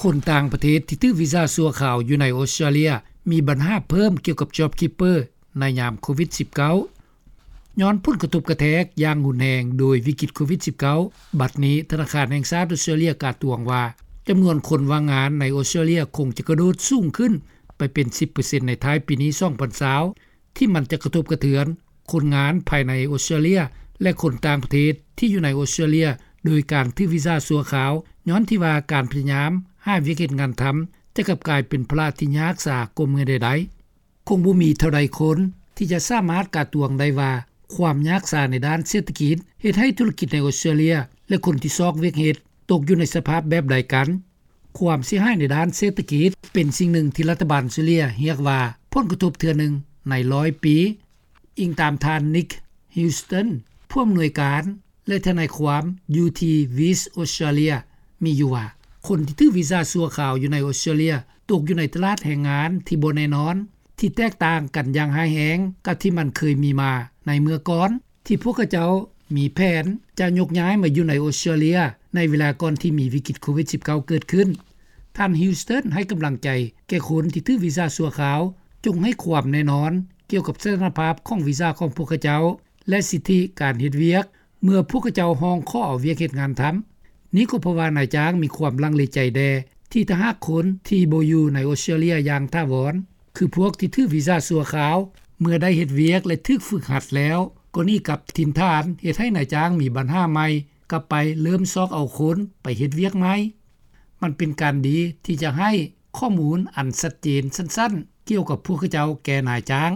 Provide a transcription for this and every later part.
ຄົນຕ່າງປະເທດທີ່ຖືກວີຊາຊົ່ວຄາວຢູ່ໃນອົດສະຕຣາເລຍ ມີບັນຫາເພີ່ມກ່ຽວກັບ JobKeeper ໃນຍາມໂຄວິດ-19. ຍ້ອນຜົນກະທົບກະແທກຢ່າງຮຸນແຮງໂດຍວິກິດໂຄວິດ-19, ບັດນີ້ທະນາຄານແຫ່ງຊາດອົດສະຕຣາເລຍກາດຕວງວ່າ ຈຳນວນຄົນວ່າງງານໃນອົດສະຕຣາເລຍຄົງຈະກະໂດດສູງຂຶ້ນໄປເປັນ ສິບເປີເຊັນ ໃນທ້າຍປີນີ້ 2020 ທີ່ມັນຈະກະທົບກະເທືອນຄົນງານພາຍໃນອົດສະຕຣາເລຍ ແລະ ຄົນຕ່າງປະເທດທີ່ຢູ່ໃນອົດສະຕຣາເລຍ ໂດຍການຖືກວີຊາຊົ່ວຄາວ ຍ້ອນທີ່ວ່າການພະຍາຍາມຫາວຽກເຮັດງານທຳ ຈະກັບກາຍເປັນພາລະທີ່ຍາກຊາກວ່າເມື່ອໃດໆ. ຄົງບໍ່ມີເທົ່າໃດຄົນທີ່ຈະສາມາດກາດຕວງໄດ້ວ່າ ຄວາມຍາກຊາໃນດ້ານເສດຖະກິດ ເຮັດໃຫ້ທຸລະກິດໃນອົດສະຕຣາເລຍ ແລະ ຄົນທີ່ຊອກວຽກເຮັດ ຕົກຢູ່ໃນສະພາບແບບໃດກັນ. ຄວາມເສຍຫາຍໃນດ້ານເສດຖະກິດ ເປັນສິ່ງໜຶ່ງທີ່ລັດຖະບານອົດສະຕຣາເລຍຮຽກວ່າ ຜົນກະທົບເທື່ອໜຶ່ງໃນຮ້ອຍປີ. ອີງຕາມທ່ານ Nick Houston ຜູ້ອຳນວຍການ ແລະ ທະນາຍຄວາມຢູ່ທີ່ West Australia ມີຢູ່ວ່າ ຄົນທີ່ຖືກວີຊາຊົ່ວຄາວຢູ່ໃນອົດສະຕຣາເລຍ ຕົກຢູ່ໃນຕະຫຼາດແຮງງານທີ່ບໍ່ແນ່ນອນ ທີ່ແຕກຕ່າງກັນຢ່າງຮ້າຍແຮງກັບທີ່ມັນເຄີຍມີມາໃນເມື່ອກ່ອນ ທີ່ພວກເຂົາເຈົ້າມີແຜນຈະຍົກຍ້າຍມາຢູ່ໃນອົດສະຕຣາເລຍ ໃນເວລາກ່ອນທີ່ມີວິກິດໂຄວິດ-19 ເກີດຂຶ້ນ. ທ່ານ Houston ໃຫ້ກຳລັງໃຈແກ່ຄົນທີ່ຖືກວີຊາຊົ່ວຄາວ, ຈົ່ງໃຫ້ຄວາມແນ່ນອນກ່ຽວກັບສະຖານະພາບຂອງວີຊາຂອງພວກເຂົາເຈົ້າ ແລະ ສິດທິການເຮັດວຽກ ເມື່ອພວກເຂົາເຈົ້າຮ້ອງຂໍເອົາວຽກເຮັດງານທຳ. ນີ້ກໍເພາະວ່ານາຍຈ້າງມີຄວາມລັງເລໃຈແດ່ ທີ່ຖ້າຫາກຄົນທີ່ບໍ່ຢູ່ໃນອົດສະຕຣາເລຍຢ່າງຖາວອນ ຄືພວກທີ່ຖືກວີຊາຊົ່ວຄາວ ເມື່ອໄດ້ເຮັດວຽກ ແລະ ຖືກຝຶກຫັດແລ້ວ ກໍໜີກັບຖິ່ນຖານ ເຮັດໃຫ້ນາຍຈ້າງມີບັນຫາໃໝ່ ກັບໄປເລີ່ມຊອກເອົາຄົນໄປເຮັດວຽກໃໝ່. ມັນເປັນການດີທີ່ຈະໃຫ້ຂໍ້ມູນອັນຊັດເຈນສັ້ນໆ ກ່ຽວກັບພວກເຂົາເຈົ້າແກ່ນາຍຈ້າງ.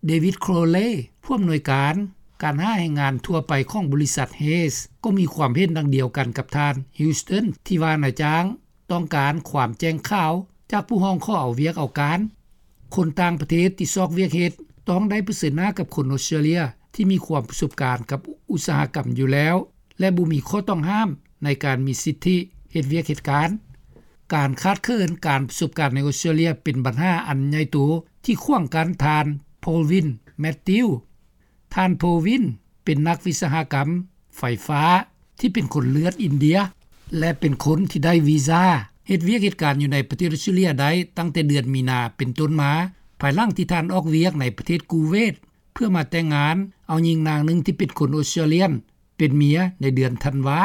David Crowley ຜູ້ອຳນວຍການການຫາແຮງງານທົ່ວໄປຂອງບໍລິສັດ Hays ກໍມີຄວາມເຫັນດັ່ງດຽວກັນກັບທ່ານ Houston ທີ່ວ່ານາຍຈ້າງຕ້ອງການຄວາມແຈ້ງຂາວຈາກຜູ້ຮ້ອງຂໍເອົາວຽກເອົາການ. ຄົນຕ່າງປະເທດທີ່ຊອກວຽກເຮັດ ຕ້ອງໄດ້ປະເຊີນໜ້າກັບຄົນອົດສະຕຣາເລຍທີ່ມີຄວາມປະສົບການກັບອຸດສາຫະກຳຢູ່ແລ້ວ ແລະ ບໍ່ມີຂໍ້ຕ້ອງຫ້າມໃນການມີສິດທິເຮັດວຽກເຮັດການ. ການຂາດເຂີນການປະສົບການໃນອົດສະຕຣາເລຍເປັນບັນຫາອັນໃຫຍ່ໂຕທີ່ຂວາງກັ້ນທ່ານ Pravin Mathew. ທ່ານ Pravin ເປັນນັກວິສະຫະກຳໄຟຟ້າທີ່ເປັນຄົນເລືອດອິນເດຍ ແລະ ເປັນຄົນທີ່ໄດ້ວີຊາເຮັດວຽກເຮັດການຢູ່ໃນປະເທດອົດສະຕຣາເລຍໄດ້ຕັ້ງແຕ່ເດືອນມີນາເປັນຕົ້ນມາ ພາຍຫຼັງທີ່ທ່ານອອກວຽກໃນປະເທດກູເວດ ເພື່ອມາແຕ່ງງານເອົາຍິງນາງໜຶ່ງທີ່ເປັນຄົນອົດສະຕຣາເລຍ ເປັນເມຍໃນເດືອນທັນວາ.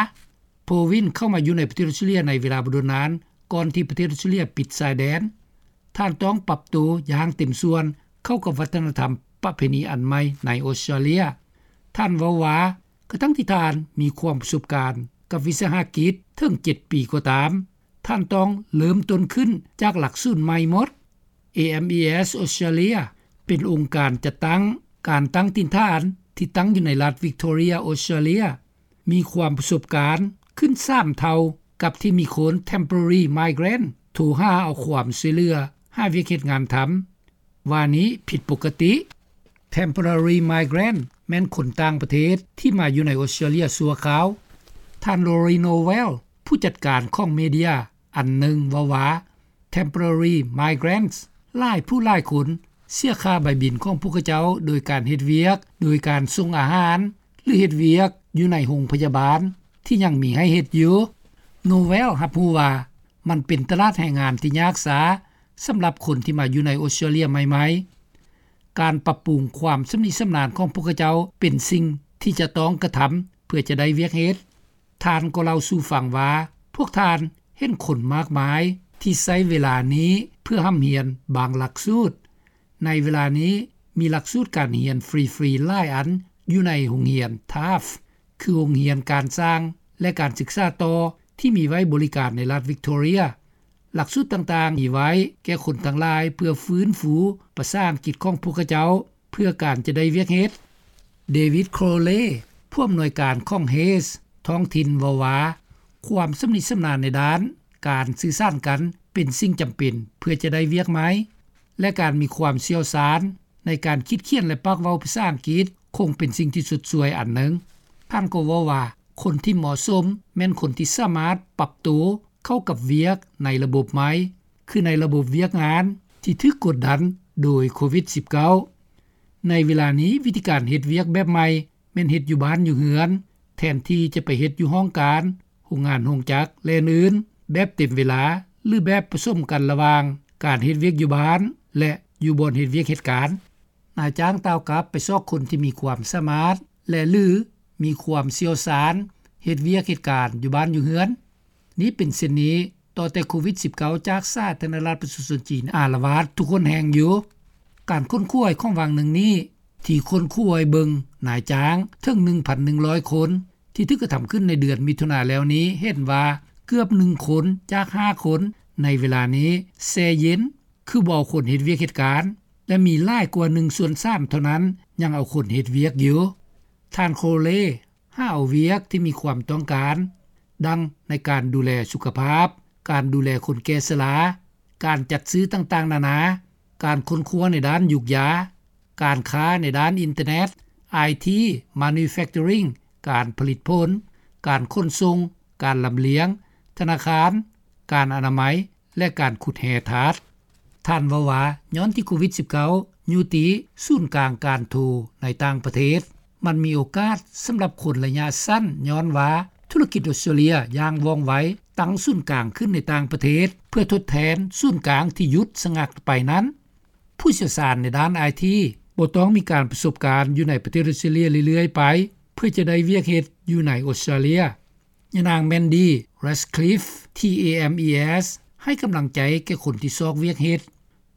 Pravin ເຂົ້າມາຢູ່ໃນປະເທດອົດສະຕຣາເລຍໃນເວລາບໍ່ດົນນານ ກ່ອນທີ່ປະເທດອົດສະຕຣາເລຍປິດຊາຍແດນ. ທ່ານຕ້ອງປັບໂຕຢ່າງເຕັມສ່ວນເຂົ້າກັບວັດທະນະທຳປະເພນີອັນໃໝ່ໃນອົດສະຕຣາເລຍ. ທ່ານເວົ້າວ່າ ກະທັ່ງທີ່ທ່ານມີຄວາມປະສົບການກັບວິສາຫະກິດເຖິງເຈັດປີກໍຕາມ, ທ່ານຕ້ອງເລີ່ມຕົ້ນຂຶ້ນຈາກຫຼັກສູນໃໝ່ໝົດ. AMES Australia ເປັນອົງການຈັດຕັ້ງການຕັ້ງຖິ່ນຖານທີ່ຕັ້ງຢູ່ໃນລັດ Victoria Australia ມີຄວາມປະສົບການຂຶ້ນສາມເທົ່າກັບທີ່ມີຄົນ Temporary Migrant ໂທຫາເອົາຄວາມຊ່ວຍເຫຼືອຫາວຽກເຮັດງານທຳ ວ່ານີ້ຜິດປົກກະຕິ. Temporary Migrant ແມ່ນຄົນຕ່າງປະເທດທີ່ມາຢູ່ໃນອົດສະຕຣາເລຍຊົ່ວຄາວ. ທ່ານ Lori Novell ຜູ້ຈັດການຂອງເມເດຍອັນໜຶ່ງເວົ້າວ່າ Temporary Migrants ຫຼາຍຜູ້ຫຼາຍຄົນເສຍຄ່າໃບບິນຂອງພວກເຂົາເຈົ້າໂດຍການເຮັດວຽກ, ໂດຍການສົ່ງອາຫານ ຫຼື ເຮັດວຽກຢູ່ໃນໂຮງພະຍາບານທີ່ຍັງມີໃຫ້ເຮັດຢູ່. Novell ຮັບຮູ້ວ່າ ມັນເປັນຕະຫຼາດແຮງງານທີ່ຍາກຊາສຳລັບຄົນທີ່ມາຢູ່ໃນອົດສະຕຣາເລຍໃໝ່ໆ. ການປັບປຸງຄວາມຊຳນິຊຳນານຂອງພວກເຂົາເຈົ້າເປັນສິ່ງທີ່ຈະຕ້ອງກະທຳເພື່ອຈະໄດ້ວຽກເຮັດ. ທ່ານກໍເລົ່າສູ່ຟັງວ່າ ພວກທ່ານເຫັນຄົນມາກມາຍທີ່ໃຊ້ເວລານີ້ເພື່ອຮ່ຳຮຽນບາງຫຼັກສູດ. ໃນເວລານີ້ມີຫຼັກສູດການຮຽນຟຣີໆຫຼາຍອັນຢູ່ໃນໂຮງຮຽນ Taft ຄືໂຮງຮຽນການຊ່າງ ແລະ ການສຶກສາຕໍ່ທີ່ມີໄວ້ບໍລິການໃນລັດ Victoria. ຫຼັກສູດຕ່າງໆມີໄວ້ແກ່ຄົນທັງຫຼາຍເພື່ອຟື້ນຟູພາສາອັງກິດຂອງພວກເຂົາເຈົ້າ ເພື່ອການຈະໄດ້ວຽກເຮັດ. David Crowley ຜູ້ອຳນວຍການຂອງ Hays ທ້ອງຖິ່ນເວົ້າວ່າ ຄວາມຊຳນິຊຳນານໃນດ້ານການສື່ສານກັນເປັນສິ່ງຈຳເປັນເພື່ອຈະໄດ້ວຽກໃໝ່ ແລະ ການມີຄວາມຊ່ຽວຊານໃນການຄິດຂຽນ ແລະ ປາກເວົ້າພາສາອັງກິດຄົງເປັນສິ່ງທີ່ຊົດຊ່ວຍອັນໜຶ່ງ. ທ່ານກໍເວົ້າວ່າ ຄົນທີ່ເໝາະສົມແມ່ນຄົນທີ່ສາມາດປັບໂຕເຂົ້າກັບວຽກໃນລະບົບໃໝ່ ຄືໃນລະບົບວຽກງານທີ່ຖືກກົດດັນໂດຍໂຄວິດ-19. ໃນເວລານີ້ ວິທີການເຮັດວຽກແບບໃໝ່ແມ່ນເຮັດຢູ່ບ້ານຢູ່ເຮືອນ ແທນທີ່ຈະໄປເຮັດຢູ່ຫ້ອງການ, ໂຮງງານໂຮງຈັກ ແລະ ອື່ນໆ ແບບເຕັມເວລາ ຫຼືແບບປະສົມກັນລະຫວ່າງການເຮັດວຽກຢູ່ບ້ານ ແລະ ຢູ່ບ່ອນເຮັດວຽກເຮັດການ. ນາຍຈ້າງຕ່າວກັບໄປຊອກຄົນທີ່ມີຄວາມສາມາດ ແລະ ຫຼືມີຄວາມຊ່ຽວຊານເຮັດວຽກເຮັດການຢູ່ບ້ານຢູ່ເຮືອນ. ນີ້ເປັນເຊັ່ນນີ້ຕໍ່ແຕ່ໂຄວິດ-19 ຈາກສາທາລະນະລັດປະຊາຊົນຈີນອາລະວາດທຸກຫົນແຫ່ງຢູ່. ການຄົ້ນຄວ້າຂອງຫວ່າງໜຶ່ງນີ້ ທີ່ຄົ້ນຄວ້າເບິ່ງນາຍຈ້າງເຖິງ ໜຶ່ງພັນໜຶ່ງຮ້ອຍຄົນ ທີ່ຖືກກະທຳຂຶ້ນໃນເດືອນມິຖຸນາແລ້ວນີ້ ເຫັນວ່າເກືອບໜຶ່ງຄົນຈາກຫ້າຄົນໃນເວລານີ້ແຊ່ເຢັນ ຄືບໍ່ເອົາຄົນເຮັດວຽກເຮັດການ ແລະ ມີຫຼາຍກວ່າໜຶ່ງສ່ວນສາມເທົ່ານັ້ນຍັງເອົາຄົນເຮັດວຽກຢູ່. ທ່ານ ໂຄເລ ຫາເອົາວຽກທີ່ມີຄວາມຕ້ອງການ ດັ່ງໃນການດູແລສຸຂະພາບ, ການດູແລຄົນແກ່ຊະລາ, ການຈັດຊື້ຕ່າງໆນານາ, ການຄົ້ນຄວ້າໃນດ້ານຢູກຢາ, ການຄ້າໃນດ້ານອິນເຕີເນັດ, ໄອທີ, manufacturing, ການຜະລິດຜົນ, ການຂົນສົ່ງ, ການລຳລຽງ, ທະນາຄານ, ການອະນາໄມ ແລະ ການຂຸດແຮ່ທາດ. ທ່ານເວົ້າວ່າ ຍ້ອນທີ່ໂຄວິດ-19 ຢູ່ຕີສູນກາງການໂທໃນຕ່າງປະເທດ, ມັນມີໂອກາດສຳລັບຄົນໄລຍະສັ້ນ ຍ້ອນວ່າທຸລະກິດອອສເຕຣເລຍຢ່າງວ່ອງໄວຕັ້ງສູນກາງຂຶ້ນໃນຕ່າງປະເທດ ເພື່ອທົດແທນສູນກາງທີ່ຢຸດສະງັກໄປນັ້ນ. ຜູ້ຊ່ຽວຊານໃນດ້ານໄອທີ ບໍ່ຕ້ອງມີການປະສົບການຢູ່ໃນປະເທດອອສເຕຣເລຍເລື້ອຍໆໄປ ເພື່ອຈະໄດ້ວຽກເຮັດຢູ່ໃນອອສເຕຣເລຍ. ຍານາງ ແມນດີ ແຣດຄລິຟ ທີ່ AMES ໃຫ້ກຳລັງໃຈແກ່ຄົນທີ່ຊອກວຽກເຮັດ,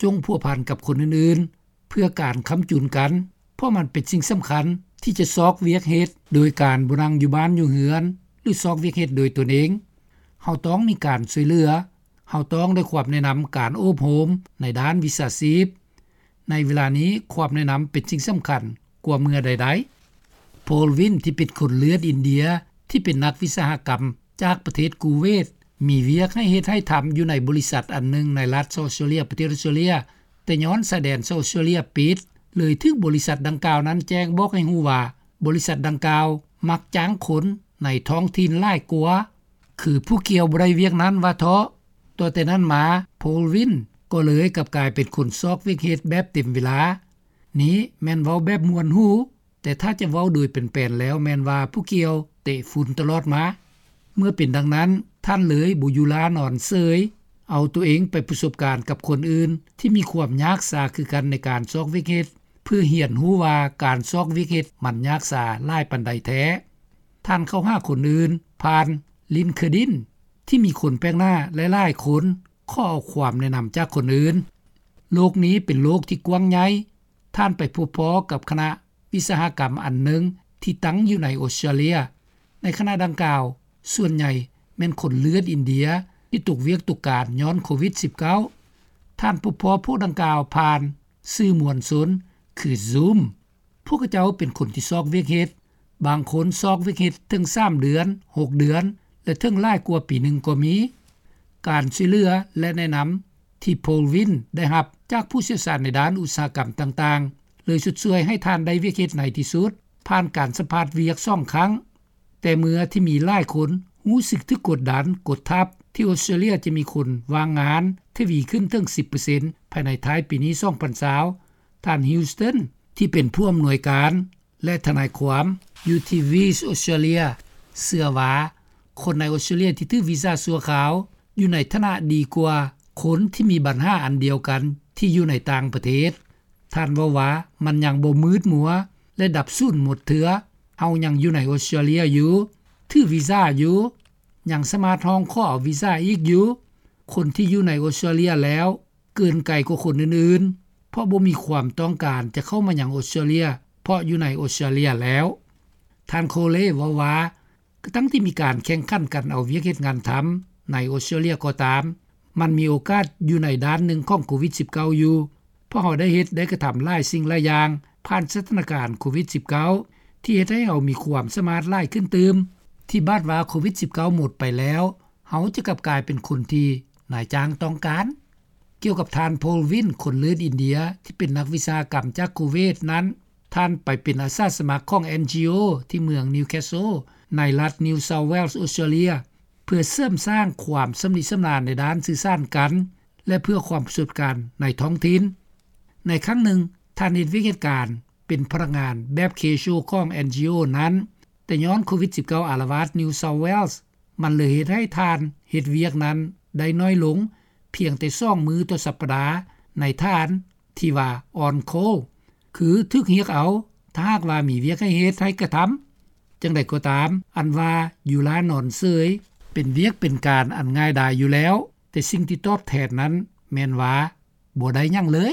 ຈົ່ງພົວພັນກັບຄົນອື່ນໆ ເພື່ອການຄ້ຳຈຸນກັນ, ເພາະມັນເປັນສິ່ງສຳຄັນທີ່ຈະຊອກວຽກເຮັດໂດຍການບໍ່ນັ່ງຢູ່ບ້ານຢູ່ເຮືອນ ຫຼື ຊອກວຽກເຮັດໂດຍຕົນເອງ. ເຮົາຕ້ອງມີການຊ່ວຍເຫຼືອ, ເຮົາຕ້ອງໄດ້ຄວາມແນະນຳການໂອບໂຮມໃນດ້ານວິຊາຊີບ. ໃນເວລານີ້ຄວາມແນະນຳເປັນສິ່ງສຳຄັນກວ່າເມື່ອໃດໆ. ໂພລວິນ ທີ່ເປັນຄົນເລືອດອິນເດຍ ທີ່ເປັນນັກວິສາຫະກຳຈາກປະເທດກູເວດ ມີວຽກໃຫ້ເຮັດໃຫ້ທຳຢູ່ໃນບໍລິສັດອັນໜຶ່ງໃນລັດເຊາເຊເລຍ ປະເທດອອສເຕຣເລຍ, ແຕ່ຍ້ອນຊາຍແດນເຊາເຊເລຍປິດ ເລີຍຖືກບໍລິສັດດັ່ງກ່າວນັ້ນແຈ້ງບອກໃຫ້ຮູ້ວ່າ ບໍລິສັດດັ່ງກ່າວມັກຈ້າງຄົນໃນທ້ອງຖິ່ນຫຼາຍກວ່າ ຄືຜູ້ກ່ຽວບໍ່ໄດ້ວຽກນັ້ນວ່າເທາະ. ຕໍ່ແຕ່ນັ້ນມາ ໂພລວິນ ກໍເລີຍກັບກາຍເປັນຄົນຊອກວຽກເຮັດແບບເຕັມເວລາ. ນີ້ແມ່ນເວົ້າແບບມ່ວນຫູ, ແຕ່ຖ້າຈະເວົ້າໂດຍແປນໆແລ້ວແມ່ນວ່າຜູ້ກ່ຽວເຕະຝຸ່ນຕະຫຼອດມາ. ເມື່ອເປັນດັ່ງນັ້ນ, ທ່ານເລີຍບໍ່ຢູ່ລ້ານອນເສີຍ, ເອົາຕົວເອງໄປປະສົບການກັບຄົນອື່ນທີ່ມີຄວາມຍາກຊາຄືກັນໃນການຊອກວຽກເຮັດ, ເພື່ອຮຽນຮູ້ວ່າການຊອກວຽກເຮັດມັນຍາກຊາຫຼາຍປານໃດແທ້. ທ່ານເຂົ້າຫາຄົນອື່ນຜ່ານ LinkedIn ທີ່ມີຄົນແປກໜ້າຫຼາຍໆຄົນຂໍເອົາຄວາມແນະນຳຈາກຄົນອື່ນ. ໂລກນີ້ເປັນໂລກທີ່ກວ້າງໃຫຍ່, ທ່ານໄປພົບພໍ້ກັບຄະນະວິສາຫະກຳອັນໜຶ່ງທີ່ຕັ້ງຢູ່ໃນອອສເຕຣເລຍ. ໃນຄະນະດັ່ງກ່າວ, ສ່ວນໃຫຍ່ແມ່ນຄົນເລືອດອິນເດຍທີ່ຕົກວຽກຕົກການຍ້ອນໂຄວິດ-19. ທ່ານພົບພໍ້ພວກດັ່ງກ່າວຜ່ານສື່ມວນຊົນ ຄື Zoom. ພວກເຂົາເຈົ້າເປັນຄົນທີ່ຊອກວຽກເຮັດ, ບາງຄົນຊອກວຽກເຮັດເຖິງສາມເດືອນ, ຫົກເດືອນ ແລະ ເຖິງຫຼາຍກວ່າປີໜຶ່ງກໍມີ. ການຊ່ວຍເຫຼືອ ແລະ ແນະນຳທີ່ໂພລວິນໄດ້ຮັບຈາກຜູ້ຊ່ຽວຊານໃນດ້ານອຸດສາຫະກຳຕ່າງໆ ເລີຍຊົດຊ່ວຍໃຫ້ທ່ານໄດ້ວຽກເຮັດໃນທີ່ສຸດ, ຜ່ານການສຳພາດວຽກສອງຄັ້ງ. ແຕ່ເມື່ອທີ່ມີຫຼາຍຄົນຮູ້ສຶກຖືກກົດດັນ, ກົດທັບ, ທີ່ອອສເຕຣເລຍຈະມີຄົນວ່າງງານທະວີຂຶ້ນເຖິງສິບເປີເຊັນ ພາຍໃນທ້າຍປີນີ້ ສອງພັນຊາວ, ທ່ານ Houston ທີ່ເປັນຜູ້ອຳນວຍການ ແລະ ທະນາຍຄວາມຢູ່ທີ່ Viz Australia ເຊື່ອວ່າ ຄົນໃນອອສເຕຣເລຍທີ່ຖືກວີຊາຊົ່ວຄາວຢູ່ໃນຖານະດີກວ່າຄົນທີ່ມີບັນຫາອັນດຽວກັນທີ່ຢູ່ໃນຕ່າງປະເທດ. ທ່ານເວົ້າວ່າ ມັນຍັງບໍ່ມືດມົວ ແລະ ດັບສູນໝົດເທື່ອ. ເຮົາຍັງຢູ່ໃນອອສເຕຣເລຍຢູ່, ຖືວີຊາຢູ່, ຍັງສາມາດຮ້ອງຂໍເອົາວີຊາອີກຢູ່. ຄົນທີ່ຢູ່ໃນອອສເຕຣເລຍແລ້ວ ເກີນໄກກວ່າຄົນອື່ນໆ ເພາະບໍ່ມີຄວາມຕ້ອງການຈະເຂົ້າມາຍັງອອສເຕຣເລຍ ເພາະຢູ່ໃນອອສເຕຣເລຍແລ້ວ. ທ່ານ ໂຄເລ ເວົ້າວ່າ ກະຕັ້ງທີ່ມີການແຂ່ງຂັນກັນເອົາວຽກເຮັດງານທຳໃນອອສເຕຣເລຍກໍຕາມ, ມັນມີໂອກາດຢູ່ໃນດ້ານໜຶ່ງຂອງໂຄວິດ-19 ຢູ່, ເພາະເຮົາໄດ້ເຮັດໄດ້ກະທຳຫຼາຍສິ່ງຫຼາຍຢ່າງ ຜ່ານສະຖານະການໂຄວິດ-19 ທີ່ເຮັດໃຫ້ເຮົາມີຄວາມສາມາດຫຼາຍຂຶ້ນຕື່ມ, ທີ່ບາດວ່າໂຄວິດ-19 ໝົດໄປແລ້ວ ເຮົາຈະກັບກາຍເປັນຄົນທີ່ນາຍຈ້າງຕ້ອງການ. ກ່ຽວກັບທ່ານ ໂພລວິນ ຄົນເລືອດອິນເດຍ ທີ່ເປັນນັກວິສາຫະກຳຈາກໂຄເວດນັ້ນ, ທ່ານໄປເປັນອາສາສະໝັກຂອງ NGO ທີ່ເມືອງ Newcastle ໃນລັດ New South Wales ອອສເຕຣເລຍ ເພື່ອເສີມສ້າງຄວາມຊຳນິຊຳນານໃນດ້ານສື່ສານກັນ ແລະ ເພື່ອຄວາມປະສົບການໃນທ້ອງຖິ່ນ. ໃນຄັ້ງໜຶ່ງ, ທ່ານເຮັດວຽກເຮັດການເປັນພະນັກງານແບບ casual ຂອງ NGO ນັ້ນ, ແຕ່ຍ້ອນໂຄວິດ-19 ອາລະວາດ New South Wales ມັນເລີຍເຮັດໃຫ້ທ່ານເຮັດວຽກນັ້ນໄດ້ໜ້ອຍລົງ ພຽງແຕ່ສອງມື້ຕໍ່ສັປດາ ໃນຖານທີ່ວ່າ on call ຄືຖືກຮຽກເອົາ ຖ້າຫາກວ່າມີວຽກໃຫ້ເຮັດ ໃຫ້ກະທຳ. ຈັ່ງໃດກໍຕາມ ອັນວ່າຢູ່ລ້ານອນເສີຍ ເປັນວຽກເປັນການອັນງ່າຍດາຍຢູ່ແລ້ວ, ແຕ່ສິ່ງທີ່ຕອບແທນນັ້ນແມ່ນວ່າ ບໍ່ໄດ້ຫຍັງເລີຍ.